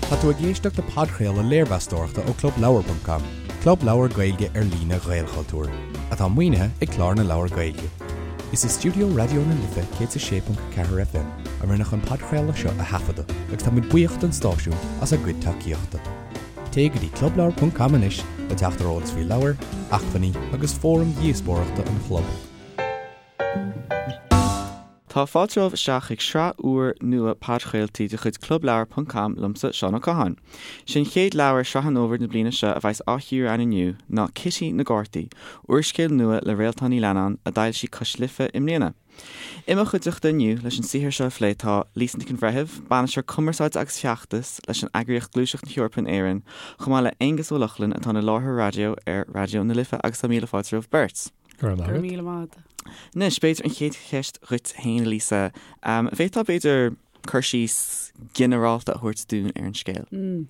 Tá tú ag éisteacht le podchraoladh léirmheastóireachta ó ClubLeabhar.com, club leabhar Gaeilge ar líne Ghaelchultúir, atá maoinithe ag Clár na Leabhar Gaeilge. Is i stiúideo Raidió na Life 106.4 FM a rinneadh an podchraoladh seo a thaifeadadh agus táimid buíoch don stáisiún as a gcuid tacaíochta. Téigh go dtí clubleabhar.com anois le teacht ar eolas faoi leabhair, acmhainní agus fóraim dhíospóireachta an chlub. Tá fáilte romhaibh isteach chuig sraith úr nua podchraoltaí de chuid Clubleabhar ponc com liomsa, Seán Ó Catháin. Sé an chéad leabhar Sraith an Fhómhair na bliana seo a bheas á chíoradh againn inniu ná Cití na gCártaí, úrscéal nua le Réaltán Ní Leannáin a d'fhoilsigh Cois Life i mbliana. I mo chuideachta inniu leis an saothar seo a phlé tá Lisa Nic an Bhreithimh, Bainisteoir Cumarsáide agus Feachtas leis an eagraíocht Gluaiseacht na hEorpa in Éirinn, chomh maith le Aonghus Ó Lochlainn atá ina láithreoir raidió ar Raidió na Life agus tá míle fáilte romhaibh beirt. Go raibh míle maith agat. Anois, b'fhéidir an chéad cheist dhuit féin, a Lisa. An bhféadfá, b'fhéidir, cur síos ginearálta a thabhairt dúinn ar an scéal?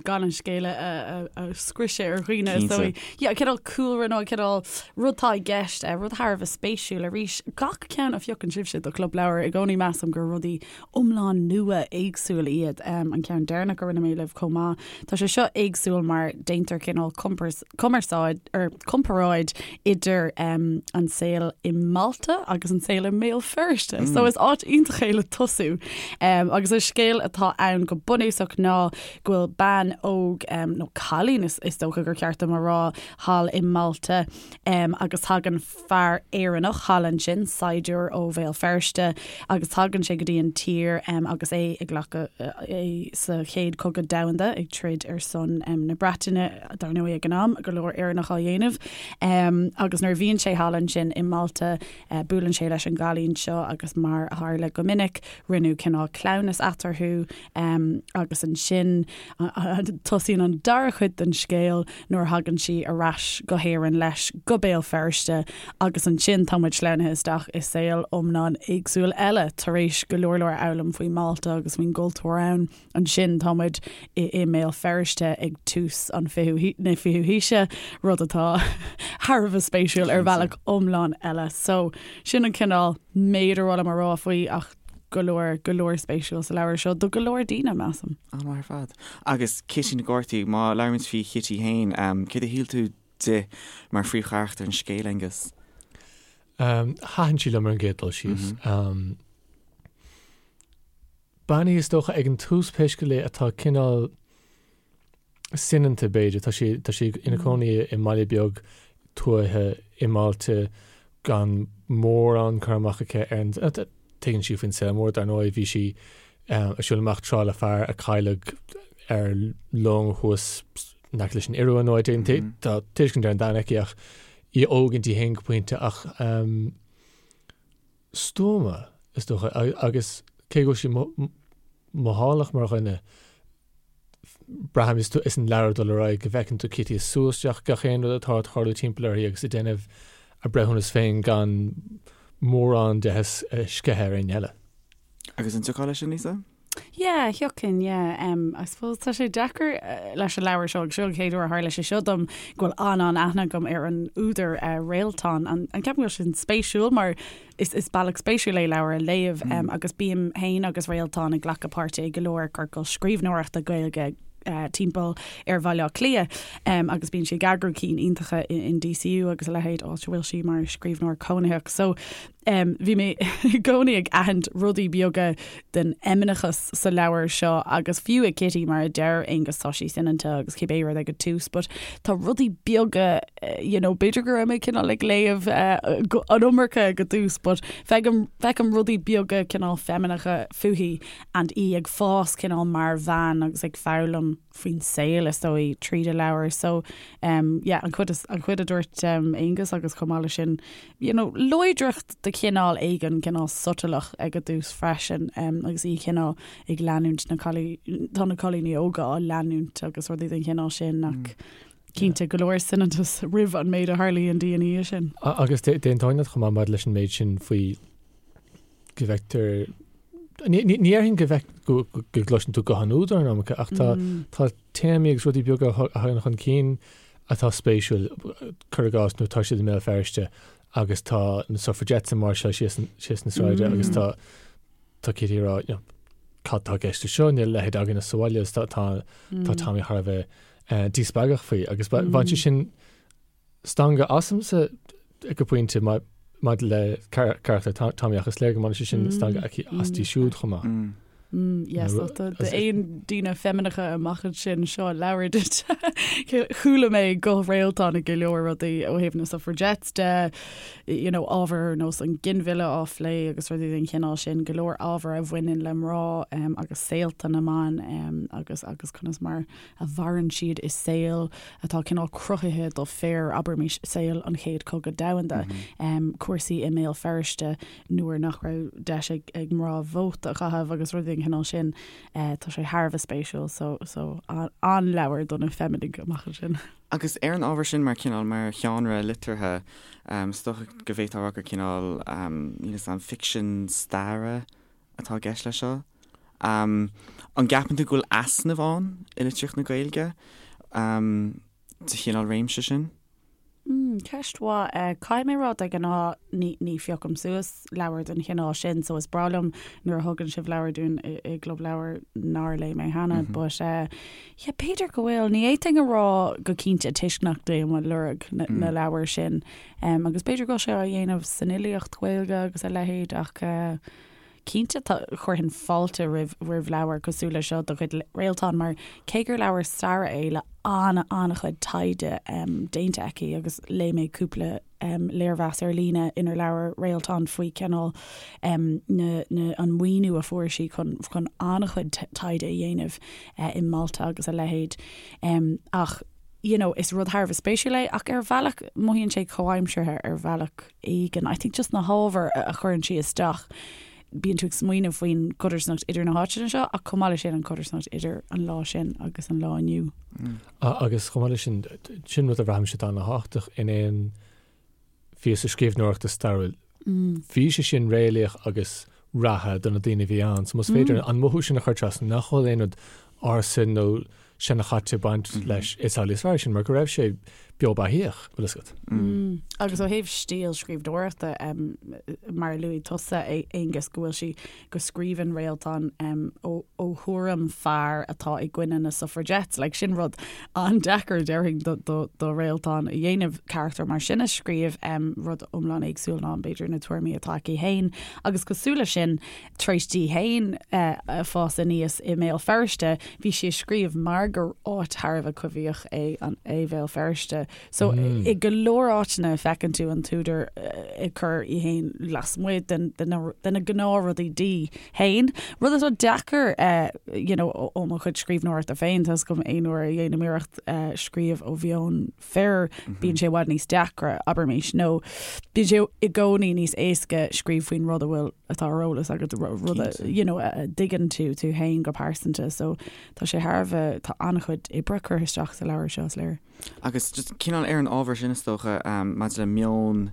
Gan an scéal a scriosadh ar dhaoine, is dóigh. Yeah, cineál cúlra nó cineál rud atá i gceist, rud thar a bheith spéisiúil arís. Gach ceann a phiocann sibhse do Chlub Leabhar, i gcónaí measaim gur rudaí iomlán nua éagsúil iad. An ceann deireanach a rinne mé libh chomh maith. Tá sé seo éagsúil mar déantar cineál cumarsáid or comparáid idir an saol i Malta agus an saol i mBéal Feirste. So is áit iontach é le tosú. Agus an scéal atá ann go bunúsach ná go bhfuil bean óg nó cailín is is dócha gur ceart dom a rá thall i Malta agus tagann fear Éireannach thall ansin, saighdiúir ó Bhéal Feirste, agus tagann sé go dtí an tír agus é ag glacadh é sa Chéad Chogadh Domhanda, ag troid ar son na Breataine, dar ndóigh ag an am, go leor Éireannach á dhéanamh. Agus nuair a bhíonn sé thall ansin i Malta, buaileann sé leis an gcailín seo agus mar a tharla go minic, rinneadh cineál cleamhnas eatarthu agus ansin tosaíonn an dara cuid den scéal nuair a thagann sí ar ais go hÉirinn leis, go Béal Feirste, agus ansin tá muid sleamhnaithe isteach i saol iomlán éagsúil eile, tar éis go leor leor a fhoghlaim faoi Mhálta agus faoin gcultúr ann. Ansin tá muid i i mBéal Feirste ag tús an fichiú na fichiú haoise, rud atá thar a bheith spéisiúil ar bhealach iomlán eile. So, sin an cineál méid ar mhaith liom a rá faoi ach go leor, go leor spéisiúil sa leabhar seo do go leor daoine, measaim. An-mhaith ar fad. Agus Cití na gCártaí, má labhraímid faoi Chití féin, céard a shíl tú di mar phríomhcharachtar an scéil, Aonghus? Thaitin sí liom ar an gcéad dul síos. Bean í is dócha ag an tús pé scéal é atá cineál soineanta b'fhéidir. Tá sí, tá sí ina cónaí i mbaile beag tuaithe i Málta gan mórán cur amach aici ar an, tuigeann sí faoin saol mór dar ndóigh, bhí sí ag siúl amach tráth le fear a cailleadh ar long thuas in aice leis an Iorua nó áit éigin. Tá tuiscint ar an domhan aici ach í óg inti féin go pointe ach stuama is dócha agus cé go bhfuil sí mothálach mar dhuine, Braithim is an leabhar ag dul ar aghaidh go bhfeiceann tú Cití ag sú isteach gach aon rud atá ag tarlú timpeall uirthi agus ag déanamh a breithiúnas féin gan mórán de a sceitheadh ar éinne eile. Agus an dtiocfá leis sin, Lisa? Yeah, thiocfainn, yeah. Um, I suppose tá sé deacair eh, leis an leabhar seo, agus seo an chéad uair a tharla sé seo dom go bhfuil an-an-aithne agam ar an údar uh, Réaltán. An, an ceapaim go bhfuil sin spéisiúil mar Is is bealach spéisiúil é leabhar a léamh agus bím féin agus Réaltán ag glacadh páirte i go leor ciorcal scríbhneoireachta Gaeilge timpeall ar Bhaile Átha Cliath agus bíonn sí ag eagrú cinn iontacha in DCU agus a leithéid, áit a bhfuil sí mar scríbhneoir cónaitheach. So bhí mé i gcónaí ag aithint rudaí beaga den fheimineachas sa leabhar seo agus fiú i Kitty mar a deir Aonghus tá sí soineanta agus cibé rud ag an tús but tá rudaí beaga you know b'fhéidir go raibh mé cineál ag léamh an iomarca ag an tús but feicim feicim rudaí beaga cineál feimineacha fúithi and í ag fás cineál mar bhean agus ag foghlaim faoin saol is dóigh tríd an leabhar so um, yeah, an chuid an chuid a dúirt um, Aonghus agus chomh maith leis sin you know, láidreacht de chineál éigin cineál sotalach ag an dtús freisin um, agus í cineál ag leanúint na cailí tá na cailíní óga á leanúint agus rudaí den chineál sin ach mm. cinnte go leor soineantas roimh an méid a tharlaíonn di ina dhiaidh sin. Agus d'aontóinn leat chomh maith maidir leis an méid sin faoi go bhfeictear Ní déarfainn go bhfeic go gcloiseann tú guth an údair an iomarca ach tá tá téamaí agus rudaí beaga a thagann chun cinn atá spéisiúil, cuir i gcás nuair atá siad i mBéal Feirste agus tá na suffragettes ag máirseáil síos síos na sráide agus tá tá Kitty ag rá you know, cad tá i gceist leis seo, níl a leithéid againne sa bhaile agus tá tá Tommy thar a bheith díspeagach faoi agus bhain sé sin stangadh asamsa go pointe maidir le carachtar Tommy ach is léir go mbaineann sé sin stangadh aici aisti siúd chomh maith. Yes, d'aon daoine feimineacha amach ansin seo leabhar duit. Chuala mé guth Réaltán i go leor rudaí ó thaobh na suffragettes de, you know, ábhar ar nós an ginmhilleadh á phlé agus rudaí den chineál sin, go leor ábhar a bhaineann le mná um, agus saolta na mban um, agus agus conas mar a mhaireann siad i saol atá cineál cruthaithe do fir, abraimis, saol an Chéad Chogadh Domhanda, mm -hmm. um, cúrsaí i mBéal Feirste nuair nach raibh deis ag, ag mná vóta a chaitheamh agus rudaí den chineál sin, uh, tá sé thar a bheith spéisiúil, so, so an-leabhar do na feiminigh amach ansin. Agus ar an ábhar sin, mar cineál, mar sheánra liteartha, is dócha go bhféadfá a rá gur cineál, níl 'fhios a'm, ficsean staire atá i gceist leis seo. An gceapann tú go bhfuil easnamh ann i litríocht na Gaeilge sa chineál réimse sin? Ceist mhaith. Caithfidh mé a rá, de ghnáth ní phiocaim suas leabhair den chineál sin so is breá liom nuair a thugann sibh leabhair dúinn i gClub Leabhar nár léigh mé cheana but yeah b'fhéidir go bhfuil. Ní fhéadfainn a rá go cinnte toisc nach dtéim ag lorg na leabhar sin agus b'fhéidir go bhfuil sé á dhéanamh san fhilíocht Ghaeilge agus a leithéid ach Cinnte, tá, chuirfinn fáilte roimh roimh leabhar cosúil le seo de chuid Réaltán mar cé gur leabhar staire é le an-an-chuid taighde déanta aici agus léigh mé cúpla léirmheas ar líne inar labhair Réaltán faoi cineál na na an maoiniú a fuair sí chun chun an-chuid taighde a dhéanamh i Malta agus a leithéid. Ach you know is rud thar a bheith spéisiúil é ach ar bhealach mothaíonn sé comhaimseartha ar bhealach. éigin. I think just na hábhair a chuireann sí isteach, bíonn tú ag smaoineamh faoin gcodarsnacht idir na háiteanna seo ach chomh maith leis sin an chodarsnacht idir an lá sin agus an lá inniu. Agus chomh maith leis sin, sin rud a bhraithimse atá an-tábhachtach in aon phíosa scríbhneoireachta stairiúil. Bhí sé sin réalaíoch agus reatha do na daoine a bhí ann. So más féidir an mothú sin a chur trasna, nach bhfuil aon rud ársa nó seanchaite ag baint leis, is amhlaidh is fearr sin, mar go raibh sé beo beathaíoch, bhfuil fhios agat. Agus ó thaobh stíl scríbhneoireachta, mar a luaigh tusa, a Aonghus, go bhfuil sí, go scríobhann Réaltán ó thuairim fear atá i gcoinne na suffragettes, like sin rud an-deacair, déarfainn, do Réaltán a dhéanamh, carachtar mar sin a scríobh, rud iomlán éagsúil ná b'fhéidir na tuairimí atá aici féin. Agus cosúil leis sin, Tar éis di féin fás aníos i mBéal Feirste, bhí sí ag scríobh mar gur áit thar a bheith coimhthíoch é an é Bhéal Feirste. So i go leor áiteanna feiceann tú an t-údar ag cur í féin lasmuigh den de na de na gnáthrudaí di féin. Rud atá deacair you know ó mo chuid scríbhneoireachta féin, tá 'fhios agam aon uair a dhéanaim iarracht scríobh ó mheon fir, bíonn sé i bhfad níos deacra, abraimis, nó bíonn sé i gcónaí níos éasca scríobh faoin rud a bhfuil, atá ar eolas agat, rud a, you know, a dtuigeann tú tú féin go pearsanta. So tá sé thar a bheith, tá an-chuid oibre curtha isteach sa leabhar seo, is léir. Agus just cineál ar an ábhar sin is dócha, maidir le meon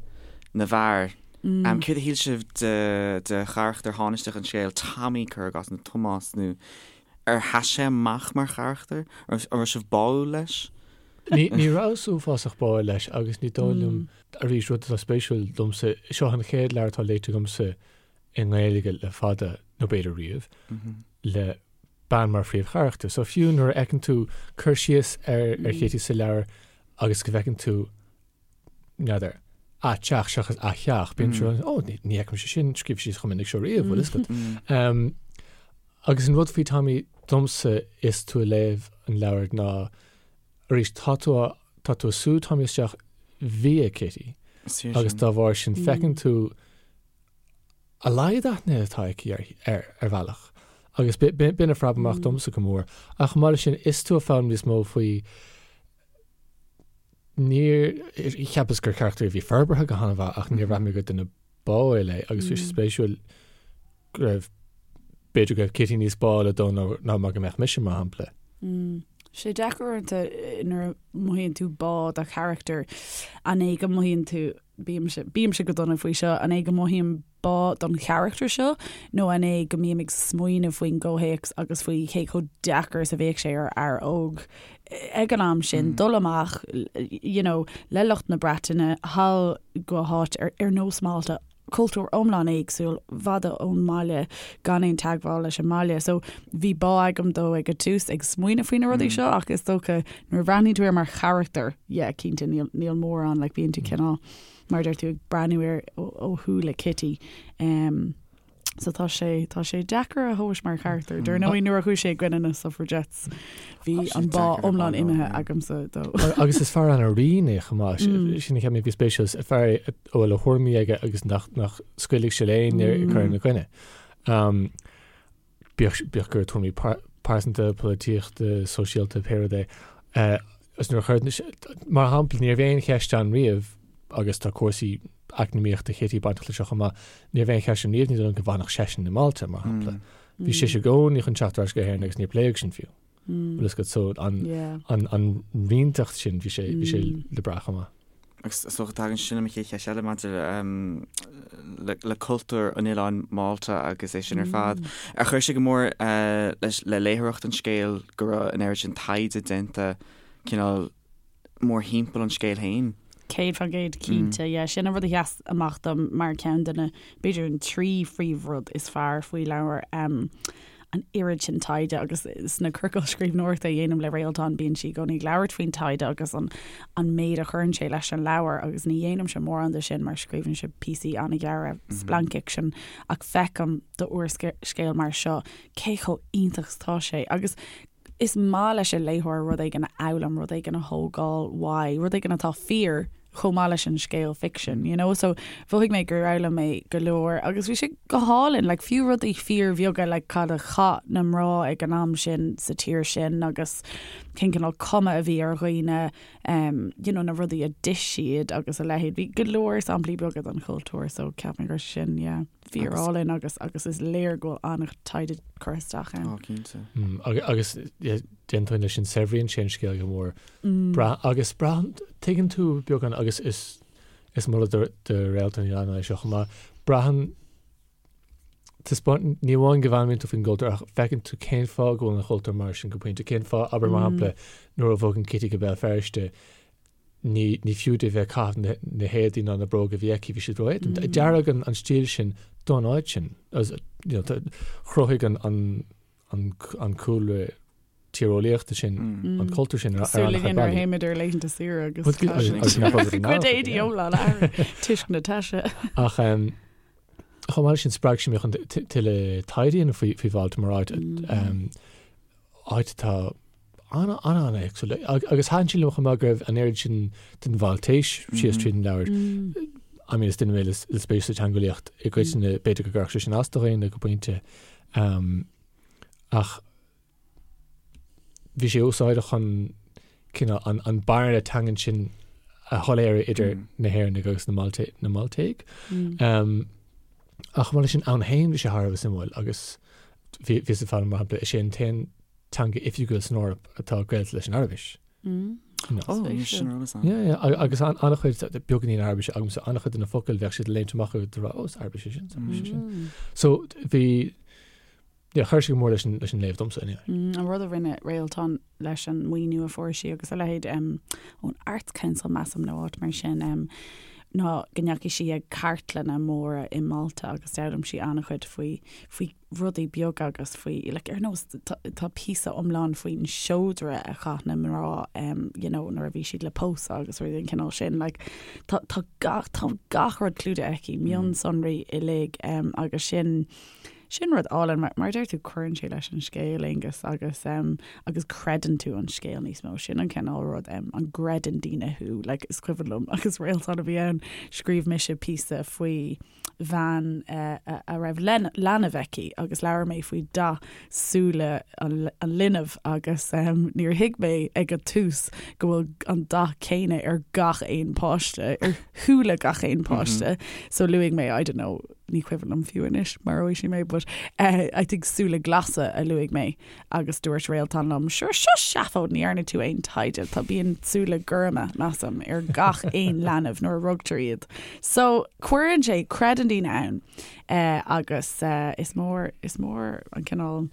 na bhfear, céard a shíl sibh de, de charachtar thánaisteach an scéil, Tommy, cuir i gcás, nó Tomás, nó ar sheas sé amach mar charachtar? An raibh sibh báúil leis? Ní rabhas uafásach báúil leis agus ní dóigh liom, arís, rud atá spéisiúil domsa, seo an chéad leabhar atá léite agamsa i nGaeilge le fada, nó b'fhéidir riamh, le bean mar phríomhcharachtar. So fiú nuair a fheiceann tú cur síos ar ar Chití sa leabhar agus go bhfeiceann tú, n'fheadar, a teach seachas a theach, bíonn tú, ó, ní fheicimse sin scríofa síos chomh minic seo riamh, bhfuil fhios agat. Agus an rud faoi Tommy domsa is tú ag léamh an leabhair ná, arís, tá tú á, tá tú ag sú Tommy isteach via Kitty agus dá bharr sin feiceann tú a laghad aithne atá aici air, ar bhealach. Agus b'in a phreab amach domsa go mór. Ach chomh maith leis sin, is tú ag foghlaim níos mó faoi, níor, cheapas gur carachtar a bhí forbartha go han-mhaith ach níor bhraith mé gur duine báúil é agus bhí sé spéisiúil go raibh, b'fhéidir go raibh Kitty níos báúla dó ná mar go mbeadh mise, mar shampla. Sé deacair uaireanta nuair a mothaíonn tú bá do charachtar, an é go mothaíonn tú, bímse, bímse go dona faoi seo, an é go mothaím bá don charachtar seo nó an é go mbím ag smaoineamh faoin gcomhthéacs agus faoi cé chomh deacair is a bheadh sé ar fhear óg ag an am sin dul amach you know, le lucht na Breataine thall go háit ar, ar nós Málta. Cultúr iomlán éagsúil, i bhfad ón mbaile, gan aon teagmháil leis an mbaile. So bhí bá agam dó ag an tús ag smaoineamh faoi na rudaí seo ach is dócha nuair a bhreathnaíonn tú air mar charachtar, yeah, cinnte níl, níl mórán, like bíonn tú cineál, mar a deir tú, ag breathnú air ó, ó shúile Kitty. Um, So tá sé, tá sé deacair a thomhas mar charachtar. Dar ndóigh nuair a chuaigh sé i gcoinne na suffragettes bhí an bá iomlán imithe agamsa dó. Agus is fear an-righin é chomh maith. Sin a cheap mé a bhí spéisiúil, is fear é a bhfuil a thuairimí aige agus nach nach scaoilfidh sé le éinne ag cur ina gcoinne. Bíodh bíodh gur tuairimí pearsanta, polaitíochta, sóisialta, pé rud é. Agus nuair a chuir, mar shampla, ní raibh aon cheist ann riamh agus tá cúrsaí eacnamaíochta Chití bainteach leis seo chomh maith, ní raibh aon cheist ann riamh ní dóigh liom go bhfanfadh seisean i Málta, mar shampla. Bhí sise i gcónaí chun teacht ar ais go hÉirinn agus níor pléadh sin fiú. Bhfuil fhios agat, so an, an, an righneacht sin, bhí sé, bhí sé le brath chomh maith. Agus is dócha tagann sin le mo chéad cheist eile maidir le, le cultúr an oileáin Málta agus é sin ar fad. Ar chuir sé go mór leis, le léitheoireacht an scéil go raibh an oiread sin taighde déanta cineál mórthimpeall an scéil féin. 100% cinnte, yeah. Sin an rud a sheas amach dom mar ceann de na, b'fhéidir an trí phríomhrud is fearr faoi leabhar, an oiread sin taighde agus sna ciorcail scríbhneoireachta a dhéanaim le Réaltán bíonn sí i gcónaí ag labhairt faoin taighde agus an an méid a chuireann sé leis an leabhar agus ní dhéanaimse mórán de sin mar scríobhaimse píosaí an-ghearra splancfhicsin ach feicim d'úrscéal mar seo cé chomh iontach is atá sé agus Is maith leis an léitheoir rud éigin a fhoghlaim, rud éigin a thógáil uaidh, rud éigin atá fíor chomh maith leis an scéal ficsin, you know? So mhothaigh mé gur fhoghlaim mé go leor agus bhí sé go hálainn, like fiú rudaí fíorbheaga like cad a chaith na mná ag an am sin sa tír sin agus cén cineál cuma a bhí ar dhaoine, um, you know, na rudaí a d'ith siad agus a leithéid. Bhí go leor samplaí beaga den chultúr so ceapaim gur sin, yeah. Fíor-álainn agus agus is léir go bhfuil an-taighde curtha isteach ann. Á, cinnte. Agus d'aontóinn leis sin, saibhríonn sé an scéal go mór. Brath agus braitheann, tuigeann tú beagán agus is is moladh do do Réaltán Ní Leannáin é seo chomh maith, braitheann, taispeáin, ní amháin go bhfoghlaimíonn tú faoin gcultúr ach feiceann tú cén fáth go bhfuil an chultúr mar sin go pointe, cén fáth, abair mar shampla, nuair a bhogann Kitty go Béal Feirste, ní, ní fiú di bheith ag caitheamh na héadaí ná na bróga a bhí aici, bhí siad ró-éadrom. Dearadh an, an stíl sin don áit sin. As, you know, tá, chruthaigh an, an, an, an cúlra tíreolaíochta sin, an cultúr sin ar, ar Súil an-chuid againn nuair a bealaí. théimid ar laethanta saoire agus Bhuel, tá agus, agus nach raibh cuid éadaí iomlán athraithe toisc na taise. Ach um, chomh maith leis sin spreag sé mé chun tuilleadh taighde a dhéanamh faoi, faoi Mhálta mar áit, um, áit atá an-an-éagsúil. Agus thaitin sé liom chomh maith go raibh an oiread sin den Mháltais síos tríd an leabhar. I mean, is duine mé le spéis sa teangeolaíocht i gcoitinne, b'fhéidir go gcuirfeadh sé sin as do dhaoine go pointe. Ach bhí sé úsáideach chun cineál an, an bearna teangan sin a shoiléiriú idir na hÉireannaigh agus na Malte, na Máltaigh. Ach chomh maith leis sin, ann féin bhí sé thar a bheith suimiúil agus bhí, bhíos ag foghlaim, mar shampla, is é an t-aon teanga oifigiúil san Eoraip atá gaolta leis an Araibis. No. Ó, níl sin ar eolas agam. Yeah, yeah, agus an, an-chuid, beagáinín Araibise agamsa, an-chuid de na focail bheadh siad ag léimt amach agus rá, ó, is Araibis é sin, is Araibis é sin. So, bhí, Yeah, chuir sé go mór leis an, leis an léamh domsa, anyway. Mm, an rud a rinne Réaltán leis an maoiniú a fuair sí agus a leithéid um, ón Arts Council measaim nó áit mar sin um, ná go ndeachaigh sí ag cartlanna móra i Málta agus d'fhoghlaim sí an-chuid faoi, faoi rudaí beaga agus faoi, like, ar nós tá, tá píosa iomlán faoin seodra a chaith na mná um, you know, nuair a bhí siad le pósadh agus rudaí den chineál sin. Like, tá, tá gach, tá gach rud clúdaithe aici, mionsonraí uilig um, agus sin, Sin rud álainn, mar, mar a deir tú, cuireann sé leis an scéal, Aonghus, agus, em, agus creideann tú an scéal níos mó. Sin an cineál rud, em, an gcreideann daoine thú, like, is cuimhin liom, agus Réaltán a bhí ann, scríobh mise píosa faoi bhean, eh, a, a raibh len, leanbh aici agus labhair mé faoi dath súile an, an linbh agus, em, níor thuig mé ag an tús go bhfuil an dath céanna ar gach aon páiste, ar shúile gach aon páiste. So luaigh mé, I don't know, ní cuimhin liom fiú anois maróidh sí mé but eh, I think súile glasa a luaigh mé agus dúirt Réaltán liom sure seo seafóid ní dhearna tú aon taighde tá bíonn súile gorma measaim ar gach aon leanbh nuair a rugtar iad. So cuireann sé creideann daoine ann eh, agus eh, is mór is mór an cineál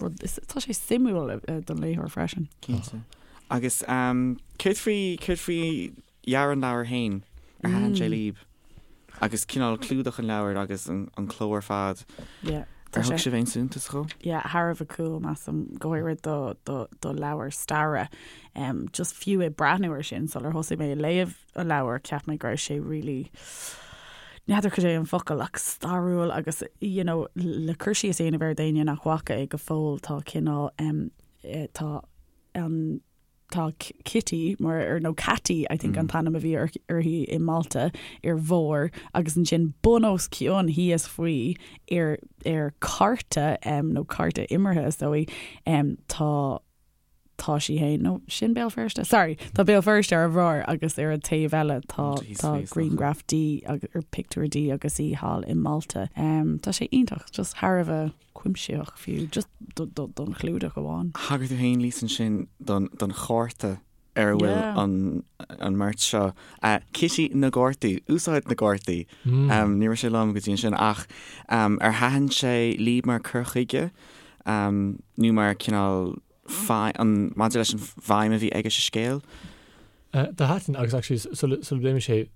rud is tá sé suimiúil eh, don léitheoir freisin. Cinnte. Agus um, céard faoi céard faoi dhearadh an leabhair féin? Ar thaitin sé libh? Agus cineál clúdach an leabhair agus an cló ar fad. Yeah. Ar thug sibh aon suntas dhó? Yeah, thar a bheith cool, measaim, go háirid do, do, do leabhar staire. Um, just fiú ag breathnú ar sin sular thosaigh mé ag léamh an leabhar, cheap mé go raibh sé really n'fheadar cad é an focal ach stairiúil agus you know, le cur síos a dhéanamh air d'éinne nach bhfaca é go fóill tá cineál um, eh, tá an Tá Kitty mar ar nó Catty I think an t-ainm a bhí uirthi i Malta ar bharr agus ansin bun os cionn thíos faoi ar ar cárta nó cárta imeartha is dóigh tá tá sí féin nó sin Béal Feirste sorry tá Béal Feirste ar a bharr agus ar an taobh eile tá tá grianghraf di agus ar pictiúr di agus í thall i Malta. Tá sé iontach just thar a bheith cuimsitheach fiú, just don chlúdach amháin. Thagair tú féin, Lisa, ansin don chárta ar a bhfuil an mbeirt seo. Kitty na gcártaí, úsáid na gcártaí. Ní raibh sé liom go dtí ansin ach ar thaitin sé libh mar cur chuige nó mar cineál maidir leis an bhfeidhm a bhí aige sa scéal? Do thaitin agus actually sula bpléimid sé,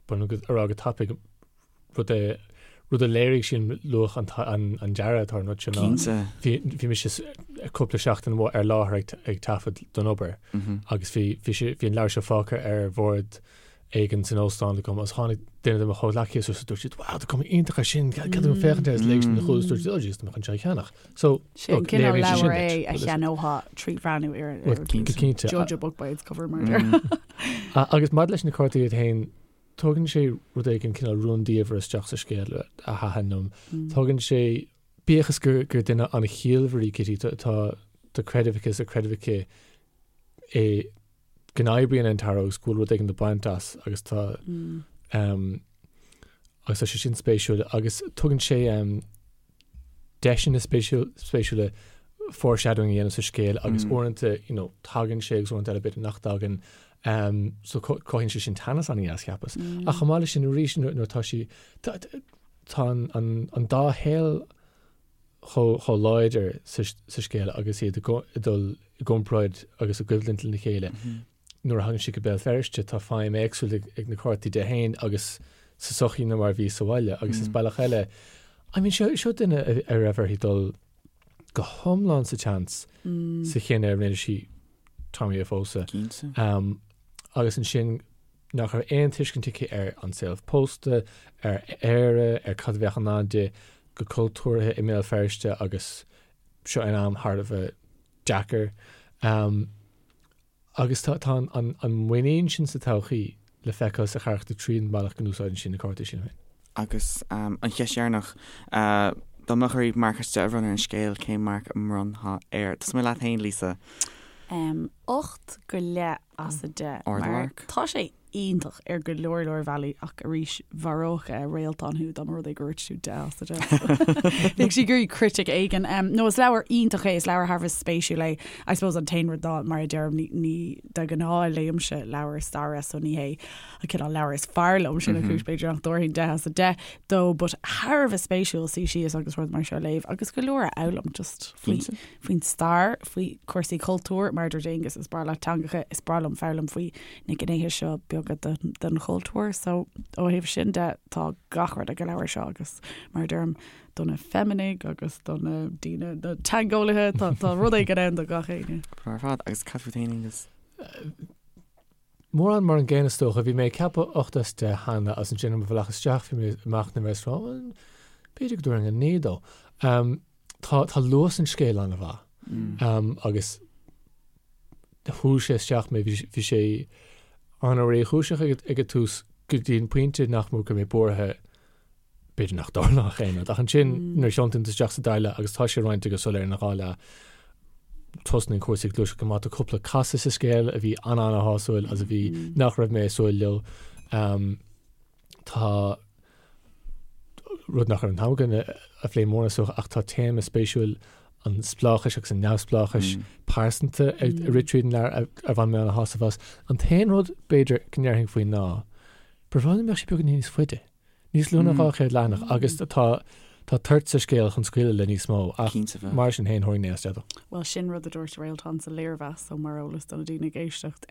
ba mhaith liom a rá go tapaidh rud a rud a léirigh sin luach an an dearadh atá ar an rud sin ná Cinnte. bhí bhí mise cúpla seachtain amuigh ar láthair ag ag taifead don obair agus bhí bhí sé bhí an leabhar seo fágtha ar bhord éigin san óstán agam agus tháinig duine de mo chomhghleacaithe suas agus dúirt siad wow tá cuma iontach air sin cead dom féachaint air agus léigh siad an chúl agus dúirt siad oh jeez tá mé chun seo a cheannach. So Sin look cineál léiríonn sé sin leabhar duit. é a cheannófá trí bhreathnú ar Well ar go cinnte. judge a book by its cover mar a déarfá. Agus maidir leis na cártaí iad féin Tugann sé rud éigin cineál rúndiamhair isteach sa scéal a thaitin liom. Tugann sé, bíodh is gur duine an-chiallmhar í Kitty, tá tá creideamh aici is tá creideamh aici i go n-oibríonn an tarot agus go bhfuil rud éigin le baint as agus tá agus tá sé sin spéisiúil agus tugann sé deiseanna spéisiúla foreshadowing a dhéanamh sa scéal agus uaireanta you know tagann sé agus uaireanta eile b'fhéidir nach dtagann so cothaíonn sé sin teannas an-dheas cheapas. Ach chomh maith leis sin arís nuair atá sí tá an dá shaol chomh láidir sa scéal agus iad ag dul i gcomparáid agus i gcoimhlint lena chéile. Nuair a thagann sí go Béal Feirste tá feidhm éagsúil ag na cártaí di féin agus sa sochaí ná mar a bhí sa bhaile agus is bealach eile I mean seo seo duine a raibh uirthi dul go hiomlán sa tseans sa chinneadh a rinne sí Tommy a phósadh. Cinnte. Um, agus ansin nach raibh aon tuiscint aici ar an saol pósta, ar Éire, ar cad a bheadh i ndán di go cultúrtha i mBéal Feirste agus seo in am thar a bheith deacair. Um, Agus tá an muinín sin sa todhchaí le feiceáil sa charachtar tríd an mbealach go n-úsáideann sí na cártaí sin féin. Agus an cheist dheireanach, dá mbeadh oraibh marc as 10 a bhronnadh ar an scéal, cén marc a mbronnfá air? Tosóidh mé leat féin, Lisa. 8 go leith as 10. Ardmharc. Tá sé iontach ar go leor leor bealaí ach arís mharódh Réaltán thú dá mba rud é gur dhúirt tú 10 as 10. Bheadh sí ag iarraidh critic éigin. No is leabhar iontach é, is leabhar thar a bheith spéisiúil é. I suppose an t-aon rud ná mar a deirim ní, ní de ghnáth léimse leabhair staire so ní hé an cineál leabhar is fearr liom sin an chúis b'fhéidir nach dtabharfainn 10 as 10 dó but thar a bheith spéisiúil suí síos agus rud mar seo a léamh agus go leor a fhoghlaim just faoi faoin stair, faoi chúrsaí cultúir, mar a dúirt Aonghus, is breá leat teangacha, is breá liom foghlaim faoi na gnéithe seo beaga den chultúr. So ó thaobh sin de, tá gach rud ag an leabhar seo agus mar a deirim, do na feiminigh agus do na daoine, na teangeolaithe, tá, tá rud éigin ann do gach éinne. Breá ar fad. Agus cad fút féin, Aonghus? Mórán mar an gcéanna is dócha. Bhí mé ag ceapadh 8 as 10 cheana agus ansin ar mo bhealach isteach bhí mé ag machnamh air is rá, bhuel, b'fhéidir go dtabharfainn 9 dó. Tá, tá luas an scéil an-mhaith agus shú sé isteach mé, bhí sé an-réchúiseach ag an tús go dtí an pointe nach mó go raibh mé buartha b'fhéidir nach dtarlódh aon rud. Ach ansin nuair a thiontaíonn tú isteach sa dara leath agus tá sé roinnte go soiléir ina dhá leath, tosnaíonn cúrsaí ag gluaiseacht go maith. Tá cúpla casadh sa scéal a bhí an-an-shásúil agus a bhí nach raibh mé ag súil leo. Tá rud nach raibh an t-am againn a phlé mórán is dócha ach tá téama spéisiúil an spleáchais agus an neamhspleáchais pearsanta ag rith tríd an leabhar ar bhain mé an-shásamh as. An t-aon rud b'fhéidir go ndéarfainn faoi ná, ba bhreá liom dá mbeadh sé beagáinín níos faide, níos lú ná 200 leathanach agus tá. Tá toirt sa scéal chun scaoileadh le níos mó, ach mar sin féin tharraing mé as teideal. Bhuel, sin rud a dúirt Réaltán sa léirmheas, so mar eolas do na daoine ag éisteacht,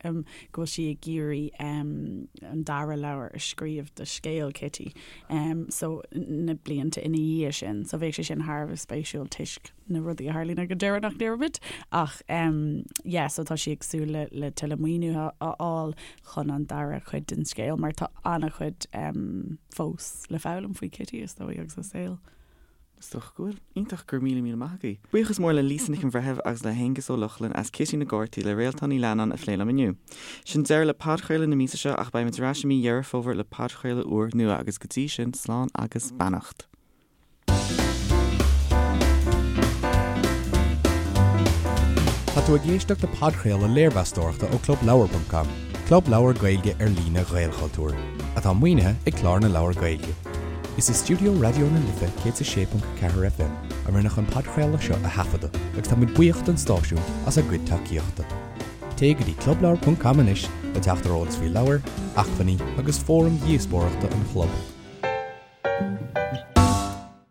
go bhfuil sí ag iarraidh an dara leabhar a scríobh de scéal Kitty, so na blianta ina dhiaidh sin. So bheadh sé sin thar a bheith spéisiúil toisc na rudaí a tharlaíonn ag an deireadh nach ndéarfaimid. Ach yeah, so tá sí ag súil le le tuilleadh maoiniú a fháil chun an dara cuid den scéal mar tá an-chuid fós le foghlaim faoi Kitty is dóigh agus a saol. Is dócha go bhfuil. Iontach, go raibh míle míle maith agaibh. Buíochas mór le Lisa Nic an Bhreithimh agus le hAonghus Ó Lochlainn as Cití na gCártaí le Réaltán Ní Leannáin a phlé liom inniu. Sin deireadh le podchraoladh na míosa seo ach beimid ar ais i mí Dheireadh Fómhair le podchraoladh úr nua agus go dtí sin slán agus beannacht. Tá tú ag éisteacht le podchraoladh léirmheastóireachta ó ClubLeabhar.com, club leabhar Gaeilge ar líne Ghaelchultúir, atá maoinithe ag Clár na Leabhar Gaeilge. Is i stiúideo Raidió na Life 106.4 FM a rinneadh an podchraoladh seo a thaifeadadh agus táimid buíoch don stáisiún as a gcuid tacaíochta. Téigh go dtí clubleabhar.com anois le teacht ar eolas faoi leabhair, acmhainní agus fóraim dhíospóireachta an chlub.